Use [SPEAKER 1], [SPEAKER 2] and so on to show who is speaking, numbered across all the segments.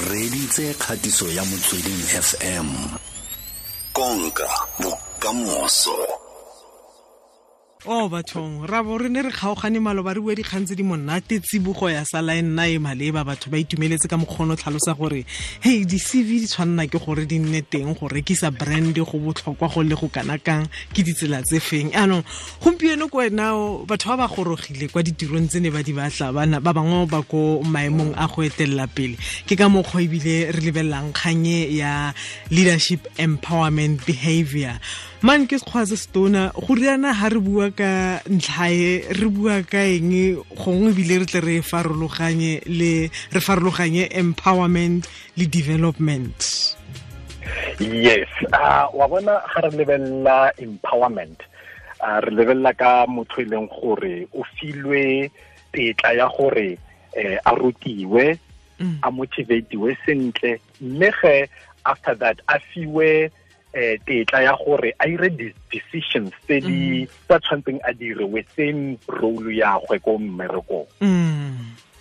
[SPEAKER 1] Reditse kgatiso ya Motsweding FM. Konka bokamoso.
[SPEAKER 2] O bathong ra bo re ne re kgaogane maloba re bua dikgang tse di monate, tsibogo ya sala e nna e maleba, batho ba itumeletse ka mokgono tlhalosa gore hey, di-CV di tshwanna ke gore di nne teng go rekisa brand go botlhokwa go le go kana kang, ke ditsela tse feng. Anong gompieno ko wena batho ba ba gorogile kwa ditirong tse ne ba di batla, bana ba bangwe ba ko maemong a go etelela pele. Ke ka mokgwa ebile re lebelelang kganye ya leadership empowerment behavior. Man ke sekgwa se setona go riana ha re bua ka ntlhae, re bua ka eng gongwe ebile re tle re farologanye le re farologanye empowerment le development.
[SPEAKER 3] Yes, wa bona ga re lebelela empowerment, re lebelela ka motho e leng gore o filwe tetla ya gore a rutiwe, a motivatiwe sentle, mme ge after that a fiwe tetla ya gore a ire decisions tse di tsa tshwantseng a dire within role ya gwe ko mmerekong.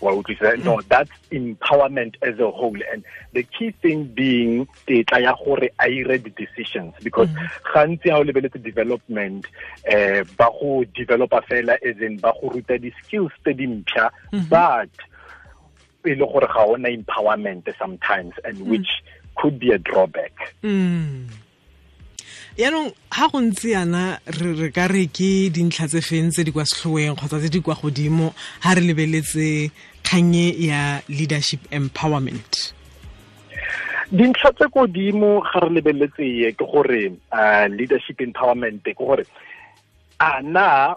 [SPEAKER 3] Wa utlwisisa? No, that's empowerment as a whole, and the key thing being tetla ya gore a ire the decisions, because gantsi ha o lebeletse development, ba go developer fela as in ba go ruta di skills tse dintšha, but e le gore ga ona empowerment sometimes, and which could be a drawback.
[SPEAKER 2] Yaanong ha go ntse yana re ka re ke dintlha tse feng tse di kwa setlhoeng kgotsa tse di kwa godimo ha re lebeletse kganye ya leadership empowerment?
[SPEAKER 3] Dintlha tse godimo ga re lebeletse ye ke gore leadership empowerment ke gore a na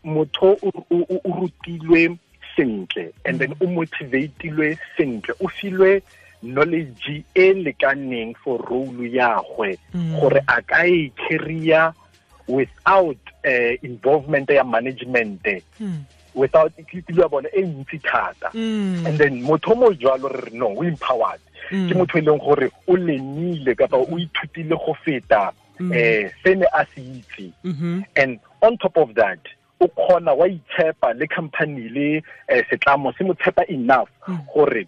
[SPEAKER 3] motho o rutilwe sentle and then o motivatilwe sentle, o filwe knowledge e lekaneng for role ya gwe gore a ka e carrier without involvement ya management, without ke bona e ntsi thata. And then motho mo jwalo re no o empowered, ke motho e leng gore o lenile kapa o ithutile go feta se ne a se itse. And on top of that o kgona wa itshepa le company le setlamo se mo tshepa enough gore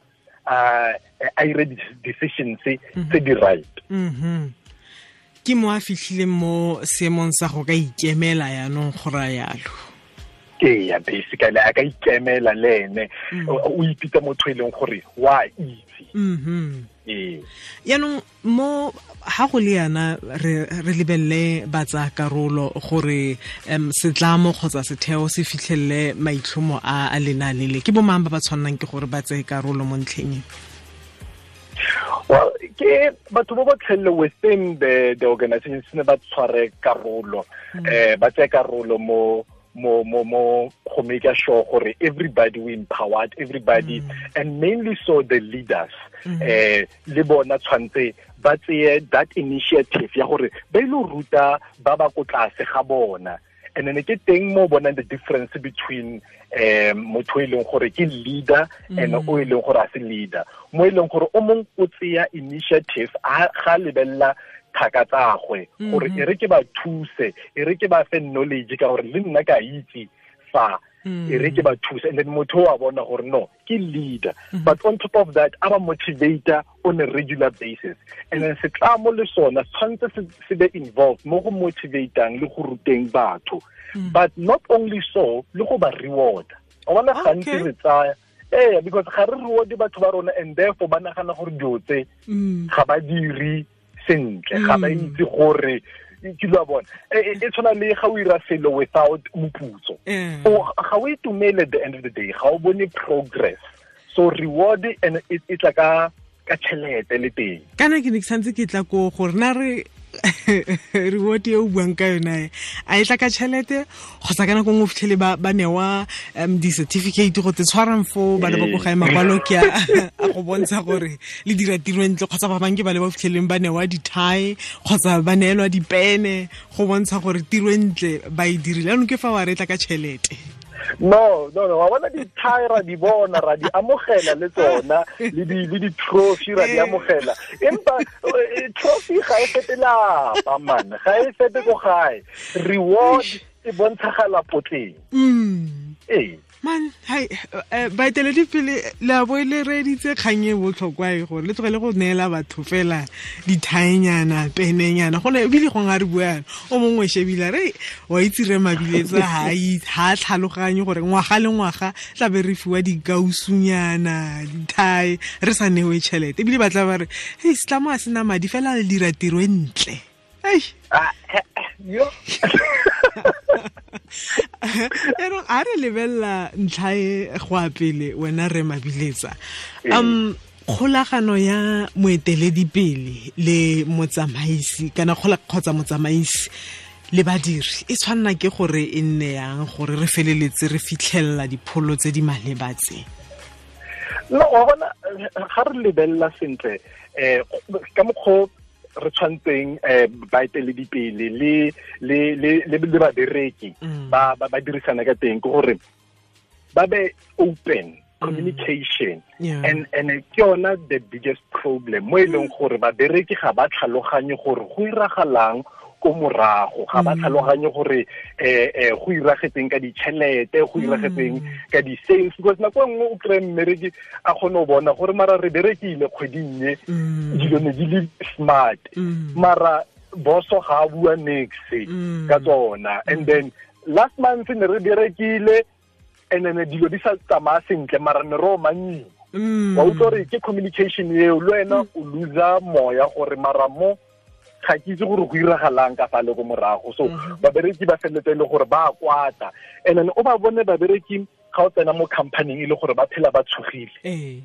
[SPEAKER 3] a ire decisions tse di right.
[SPEAKER 2] Ke mo a fitlhileng mo seemong sa go ka ikemela yaanong go raya yalo.
[SPEAKER 3] Ee, basically a ka ikemela le ene, o ipitsa motho e leng gore wa itse. Ee.
[SPEAKER 2] Yaanong mo ha go le yana re lebelele ba tsaya karolo gore setlamo kgotsa setheo se fitlhelele maitlhomo a lenaane le, ke bo mang ba ba tshwannang ke gore ba tseye karolo mo ntlheng e?
[SPEAKER 3] Well, ke batho ba ba tlhelle within the organization se ne ba tshware karolo, ba tseye karolo mo mo mo mo go make sure gore everybody we empowered everybody, and mainly so the leaders, le bona tshwantse ba tseye that initiative ya gore ba ile ruta ba ba ko tlase ga bona. And then ke teng mo bonang the difference between motho e leng gore ke leader and o e leng gore a se leader, mo e leng gore o mong o tseya initiative a ga lebella thaka tsagwe gore e re ke ba thuse, e re ke ba fe knowledge ka gore le nna ka itse fa, e re ke ba thuse. And then motho wa bona gore no ke leader, but on top of that a ba motivator on a regular basis. And then setlamo le sona tshwantse se be involved mo go motivatang le go ruteng batho, but not only so le go ba reward. O bona gantsi re tsaya because ga re reward batho ba rona, and therefore ba nagana gore dilo tse ga ba dire sentle, ga ba itse gore ke lo bona. E tshwana le ga o ira selo without moputso, o ga o itumele at the end of the day, ga o bone progress. So reward and e tla ka tšhelete le teng.
[SPEAKER 2] Kana ke ne ke santse ke tla ko gore na re reward e o buang ka yona a e tla ka tšhelete kgotsa ka nako nngwe o fitlhele ba newa di-certificate go te tshwarang foo ba le ba ko gae makwalo ke a go bontsha gore le dira tiro ntle, kgotsa ba bangwe ke ba le ba fitlheleng ba newa di-tie kgotsa ba neelwa dipene go bontsha gore tiro ntle ba e dirile. Jaanong ke fa wa re tla ka tšhelete.
[SPEAKER 3] No, wa bona di-tie ra di bona, ra di amogela le tsona, le di-trophy ra di amogela, empa trophy ga e fete lapa man, ga e fete ko gae. Reward e bontshagala potleng. Ee.
[SPEAKER 2] Man, hai baeteledipele le a bo le reeditse kgang e botlhokwa e gore le tlogele go neela batho fela dithaenyana penenyana gone ebile gongwe a re buana o mongwe shebile re wa itse re Mabiletsa ha tlhaloganye gore ngwaga le ngwaga tla be re fiwa dikausunyana dithae re sa newe tšhelete ebile ba tla ba re hei setlamo a sena madi fela le dira tiro e ntle. Ei
[SPEAKER 3] yo
[SPEAKER 2] yaanong a re lebelela ntlha e go a pele wena re Mabiletsa, kgolagano ya moeteledipele le motsamaisi kana kgotsa motsamaisi le badiri e tshwanna ke gore e nne yang gore re feleletse re fitlhelela dipholo tse di maleba tse?
[SPEAKER 3] No, wa bona ga re lebelela sentle ka mokgwa re tshwantseng baeteledipele le le le le babereki ba ba dirisana ka teng ke gore ba be open communication. And ke yona the biggest problem mo e leng gore babereki ga ba tlhaloganye gore go iragalang ko morago, ga ba tlhaloganye gore go iragetseng ka ditšhelete, go iragetseng ka di-sales, because nako e nngwe o kry-e mmereki a kgone go bona gore mara re berekile kgweding e dilo ne di le smart, mara boso ga a bua nix ka tsona. And then last month ne re berekile and then dilo di sa tsamaya sentle mara ne re omanyiwa. Wa utlwa gore ke communication eo le wena o loser moya gore mara mo ga ke itse gore go iragalang ka fa le ko morago. So babereki ba feleletse e le gore ba kwata, and then o ba bone babereki ga o tsena mo company e le gore ba phela ba tshogile,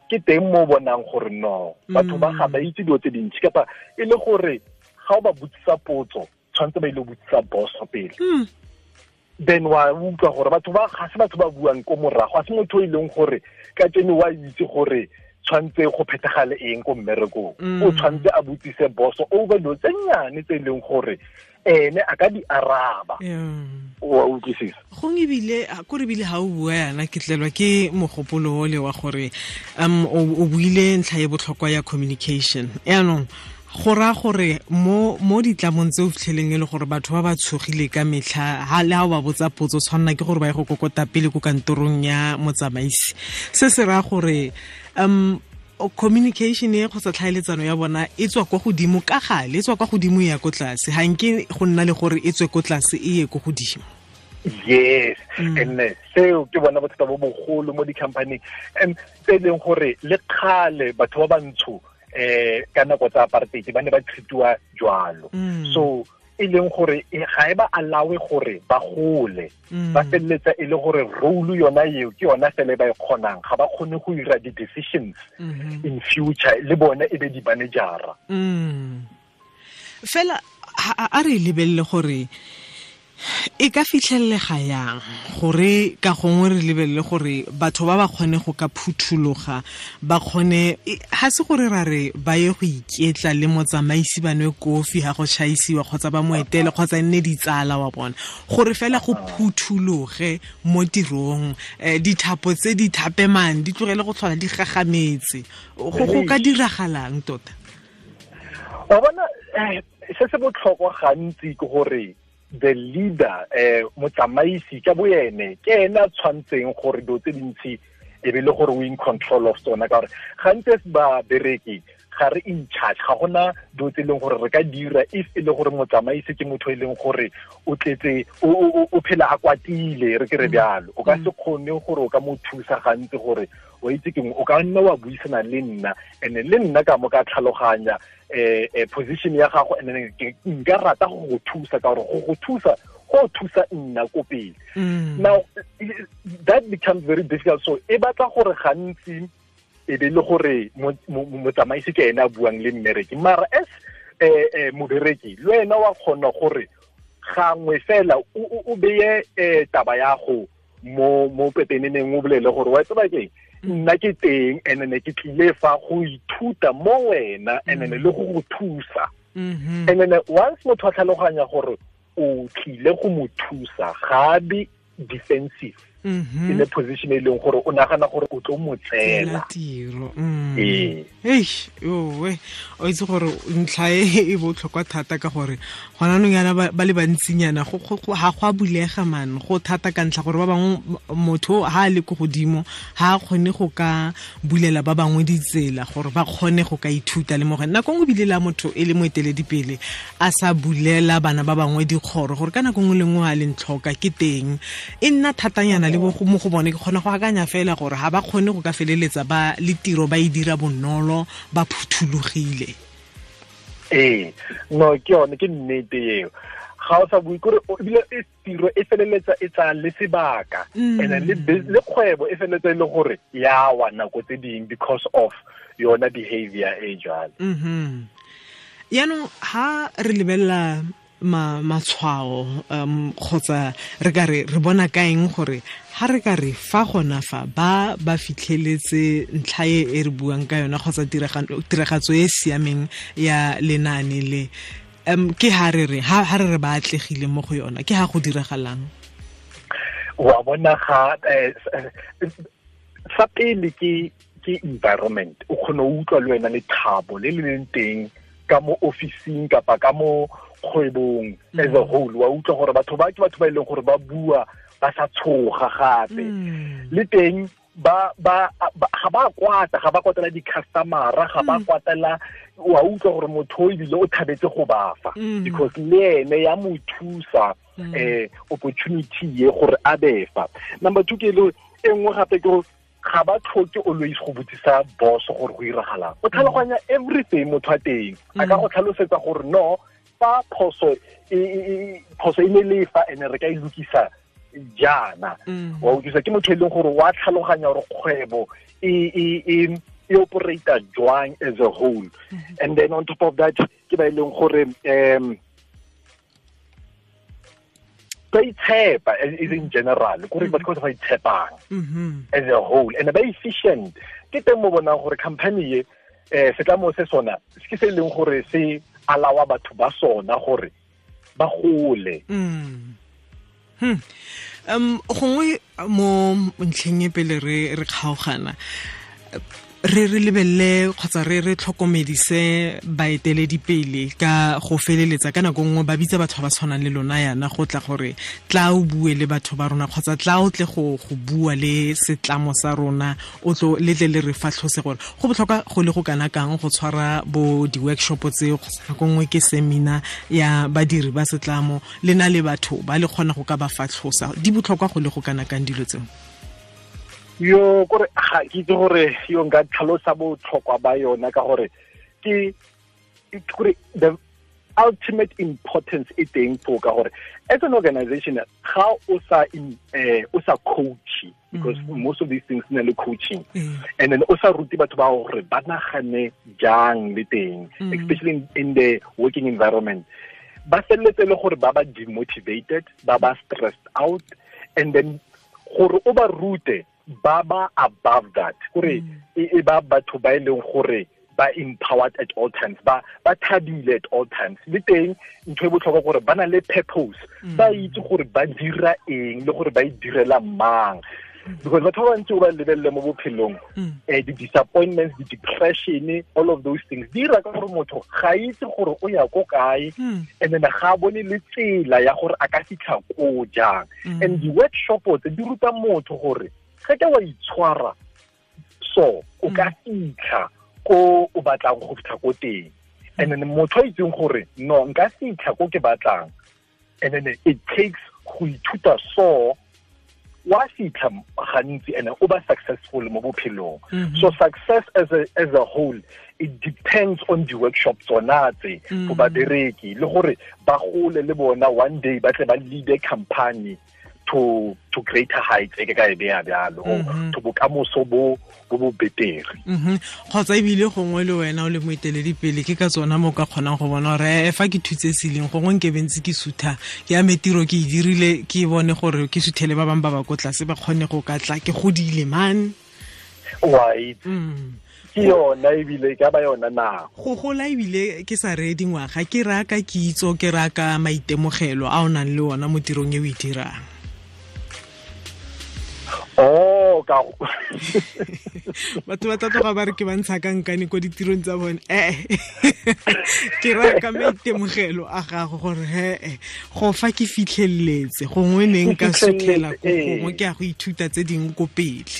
[SPEAKER 3] ke teng mo bonang gore no batho ba ga ba itse dilo tse dintsi, kapa e le gore ga o ba botsisa potso tshwanetse ba ile botsisa boss pele. Then wa utlwa gore batho ba ga se batho ba buang ko morago, ga se motho e leng gore ka tsene wa itse gore tshwanetse go phethagale eng ko mmerekong, o tshwanetse a botsise boso over dilo tse nnyane tse e leng gore ene a ka di araba. Wa utlwisisa?
[SPEAKER 2] Gongwe ebile ko re bile ga o bua yana ke tlelwa ke mogopolo ole wa gore o buile ntlha e botlhokwa ya communication. Yaanong go raya gore mo ditlamong tse o fitlheleng e le gore batho ba ba tshogile ka metlha ha le ha o ba botsa potso tshwanna ke gore ba ye go kokota pele ko kantorong ya motsamaisi, se se raya gore communication e kgotsa tlhaeletsano ya bona e tswa kwa godimo ka gale, e tswa kwa godimo e ya ko tlase, ga nke go nna le gore e tswe ko tlase e ye ko godimo.
[SPEAKER 3] Yes, and seo ke bona bothata bo bogolo mo di-company and tse e leng gore le kgale batho ba bantsho ka nako tsa apartheid ba ne ba treatiwa jwalo. So e leng gore ga e ba allowe gore ba gole, ba feleletsa e le gore role yona eo ke yona fela e ba e kgonang, ga ba kgone go dira di-decisions in future le bone e be di-managera.
[SPEAKER 2] Fela a re lebelele gore e ka fitlhelega yang gore ka gongwe re lebelele gore batho ba ba kgone go ka phuthologa, ba kgone ha se gore ra re ba ye go iketla le motsamaisi ba nwe kofi ha go chaisiwa kgotsa ba mo etele kgotsa nne ditsala wa bona, gore fela go phuthologe mo tirong, dithapo tse di thapemang di tlogele go tlhola di gagametse. Go ka diragalang tota?
[SPEAKER 3] Wa bona se se botlhokwa gantsi ke gore the leader motsamaisi ka boene ke ena a tshwantseng gore dilo tse dintsi e be le gore o in control of tsona, ka gore gantsi ba bereki ga re in charge, ga gona dilo tse e leng gore re ka dira if e le gore motsamaisi ke motho e leng gore o tletse o phela a kwatile, re ke re bjalo, o ka se kgone gore o ka mo thusa gantsi gore o itse keng, o ka nna wa buisana le nna and le nna ka mo ka tlhaloganya position ya gago and then nka rata go go thusa ka gore go go thusa go thusa nna ko pele. Now that becomes very difficult, so e batla gore gantsi e be le gore motsamaisi ke ena a buang le mmereki, mara as mobereki le wena wa kgona gore gangwe fela o beye taba ya go mo pepeneneng, o bolele gore wa tseba keng, nna ke teng and ne ke tlile fa go ithuta mo wena and le go go thusa. And then once motho a tlhaloganya gore o tlile go mo thusa, ga be defensive. In a position e leng gore o nagana gore o tlo mo tseela
[SPEAKER 2] tiro. Eish, owe o itse gore ntlha e botlhokwa thata ka gore gona nong yana ba le bantsinyana go ga go a bulega man, go thata ka ntlha gore ba bangwe motho ha a le ko godimo ha a kgone go ka bulela ba bangwe ditsela gore ba kgone go ka ithuta le mo go nako nngwe bile la motho e le moeteledipele a sa bulela bana ba bangwe dikgoro gore ka nako nngwe le nngwe a leng tlhoka ke teng e nna thatanyana le mo go bone. Ke kgona go akanya fela gore ha ba kgone go ka feleletsa ba le tiro ba e dira bonolo ba phuthulogile.
[SPEAKER 3] Ee, no ke yone, ke nnete eo. Ga o sa bue kore ebile e tiro e feleletsa e tsaya le sebaka, and then le kgwebo e feleletsa e le gore ya wa nako tse ding because of yona behavior e jwalo.
[SPEAKER 2] Yaanong ha re lebelela matshwao kgotsa re ka re re bona kaeng gore ha re ka re fa gona fa ba ba fitlheletse ntlha e re buang ka yona kgotsa tiragatso e siameng ya lenaane le, ke ha re re ha re re ba atlegile mo go yona, ke ha go diragalang?
[SPEAKER 3] Wa bona ga sa pele ke environment, o kgone o utlwa le wena lethabo le le leng teng ka mo officing kapa ka mo kgwebong as a whole. Wa utlwa gore batho ba ke batho ba e leng gore ba bua ba sa tshoga gape, le teng ba ga ba kwata, ga ba kwatela di-customer-a, ga ba kwatela. Wa utlwa gore motho o ebile o thabetse go ba fa because le ene ya mo thusa opportunity ye gore a be fa. Number two ke le e nngwe gape ke gore ga ba tlhoke always go botsisa boss gore go iragalang, o tlhaloganya everything motho a teng a ka go tlhalosetsa gore no fa phoso e ne le fa ene re ka e lokisa jaana. Wa utlwisa ke motho e leng gore wa tlhaloganya gore kgwebo e operata jwang as a whole. And then on top of that ke ba e leng gore ba itshepa is in general kore batho ba itshepang as a whole and ba efficient. Ke teng mo bonang gore company e setlamo se sona ke se e leng gore se alawa batho ba sona gore ba gole.
[SPEAKER 2] Gongwe mo ntlheng e pele re kgaogana re re lebelele kgotsa re re tlhokomedise baeteledipele ka go feleletsa ka nako nngwe ba bitsa batho ba ba tshwanang le lona yana go tla gore tla o bue le batho ba rona kgotsa tla o tle go bua le setlamo sa rona, o tlo le tle le re fatlhose gore go botlhokwa go le go kana kang go tshwara bo di-workshop tseo kgotsa nako nngwe ke seminar ya badiri ba setlamo le na le batho ba le kgona go ka ba fatlhosa. Di botlhokwa go le go kana kang dilo tseo?
[SPEAKER 3] Yo kore ga ke itse gore yo nka tlhalosa botlhokwa ba yona ka gore ke kore the ultimate importance e teng fo ka gore as an organization ga o sa o sa coach, because most of these things na le coaching, and then o sa rute batho ba gore ba nagane jang le teng, especially in the working environment, ba felletse le gore ba ba demotivated, ba ba stressed out, and then gore o ba rute ba ba above that kore e ba batho ba e leng gore ba empowered at all times, ba thabile at all times. Le teng ntho e botlhokwa gore ba na le purpose, ba itse gore ba dira eng le gore ba e direla mang, because batho ba bantsi o ba lebelele mo bophelong, di-disappointments, di-depression, all of those things di dira ka gore motho ga itse gore o ya ko kae, and then ga bone le tsela ya gore a ka fitlha ko jang. And di-workshop tse di ruta motho gore ge ke wa itshwara so o ka fitlha ko o batlang go fitlha ko teng, and then motho a itseng gore no nka fitlha ko ke batlang, and then it takes go ithuta so wa fitlha gantsi and o ba successful mo bophelong. So success as a whole it depends on the workshop tsona tse for babereki le gore ba gole le bona one day ba tle ba lead a company to greater heights e ke ka e beya bjalo, to bokamoso bo bo betere.
[SPEAKER 2] Kgotsa ebile gongwe le wena o le moeteledipele ke ka tsona mo ka kgonang go bona gore fa ke thutse seleng gongwe nke bentse ke sutha ke ame tiro ke e dirile ke bone gore ke suthele ba bangwe ba ba ko tlase ba kgone go ka tla ke godile man.
[SPEAKER 3] Wa itse ke yona ebile ka ba yona nako
[SPEAKER 2] go gola ebile ke sa reye dingwaga ke raya ka kitso ke raya ka maitemogelo a o nang le ona mo tirong e o e dirang.
[SPEAKER 3] Oh, ka
[SPEAKER 2] batho ba tla tloga ba re ke ba ntsha ka nkane ko ditirong tsa bone. Ke raya ka maitemogelo a gago gore he go fa ke fitlheletse gongwe ne nka sutlhela ko gongwe ke ya go ithuta tse dingwe ko pele.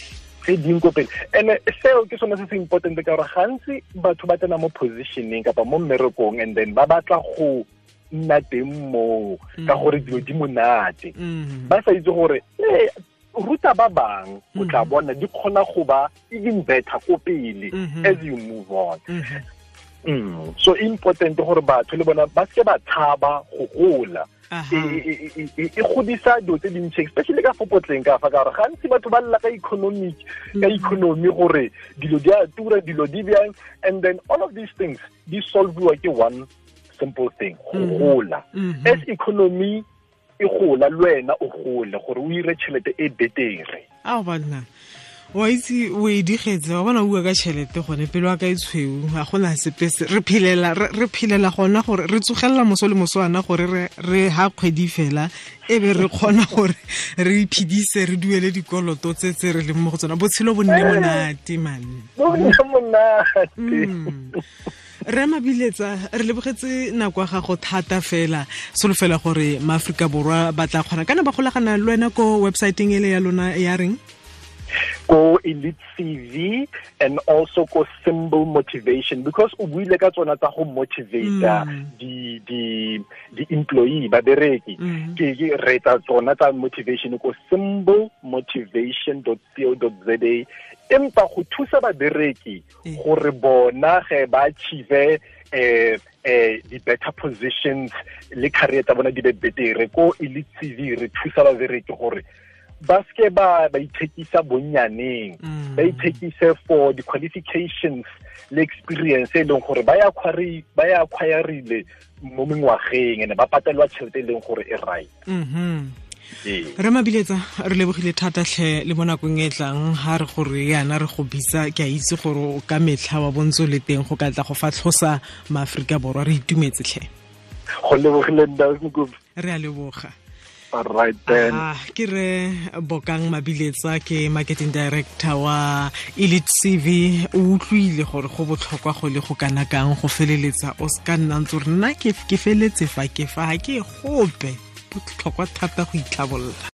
[SPEAKER 3] Tse dingwe ko pele. And seo ke sone se se important ka gore gantsi batho ba tsena mo positioning kapa mo mmerekong and then ba batla go nna teng moo ka gore dilo di monate. Ba sa itse gore ruta ba bang o tla bona di kgona go ba even better ko pele as you move on. So important gore batho le bona ba se ba tshaba go gola. E godisa dilo tse dintsi, especially ka fopotleng ka fa, ka gore gantsi batho ba lla ka economic, ka economy gore dilo di a tura, dilo di bjang, and then all of these things di solviwa ke one simple thing, go gola. As economy e gola le wena o gole gore o ire tšhelete e betere.
[SPEAKER 2] Ao banna, wa itse o e digetse, wa bona o bua ka tšhelete gone pelo wa ka e tshweu, ga gona sepe se re phelela, re phelela gona gore re tsogelela moso le moswana gore re ha kgwedi fela e be re kgona gore re iphedise, re duele dikoloto tse tse re leng mo go tsona. Botshelo bo nne monate man.
[SPEAKER 3] Bo nne monate.
[SPEAKER 2] Re Mabiletsa, re lebogetse nako ya gago thata fela. Solofela gore maAforika Borwa ba tla kgona kana ba golagana le wena ko websiteng ele ya lona ya reng?
[SPEAKER 3] Ko Elite CV and also ko Symbol Motivation, because o buile ka tsona tsa go motivate di employee babereki. Ke re tsa tsona tsa motivation ko symbolmotivation.co.za. Empa go thusa babereki gore bona ge ba achieve di better positions le career tsa bona di be betere, ko Elite CV re thusa babereki gore ba ske ba ithekisa bonnyaneng, ba ithekise for the qualifications le experience e leng gore ba ya acquirile mo mengwageng ene ba patelwa tšhelete e leng gore e right.
[SPEAKER 2] Re Mabiletsa, re lebogile thata tlhe le mo nakong e tlang ha re gore yana re go bitsa, ke a itse gore o ka metlha wa bontso le teng go ka tla go fatlhosa maAforika Borwa. Re itumetse tlhe.
[SPEAKER 3] Go lebogile nna.
[SPEAKER 2] Re a leboga.
[SPEAKER 3] All right then.
[SPEAKER 2] Ke re Bokang Mabiletsa, ke marketing director wa Elite CV. O utlwile gore go botlhokwa go le go kana kang go feleletsa o se ka nna ntse re nna ke feletse fa ke fa ga ke gope. Botlhokwa thata go itlhabolola.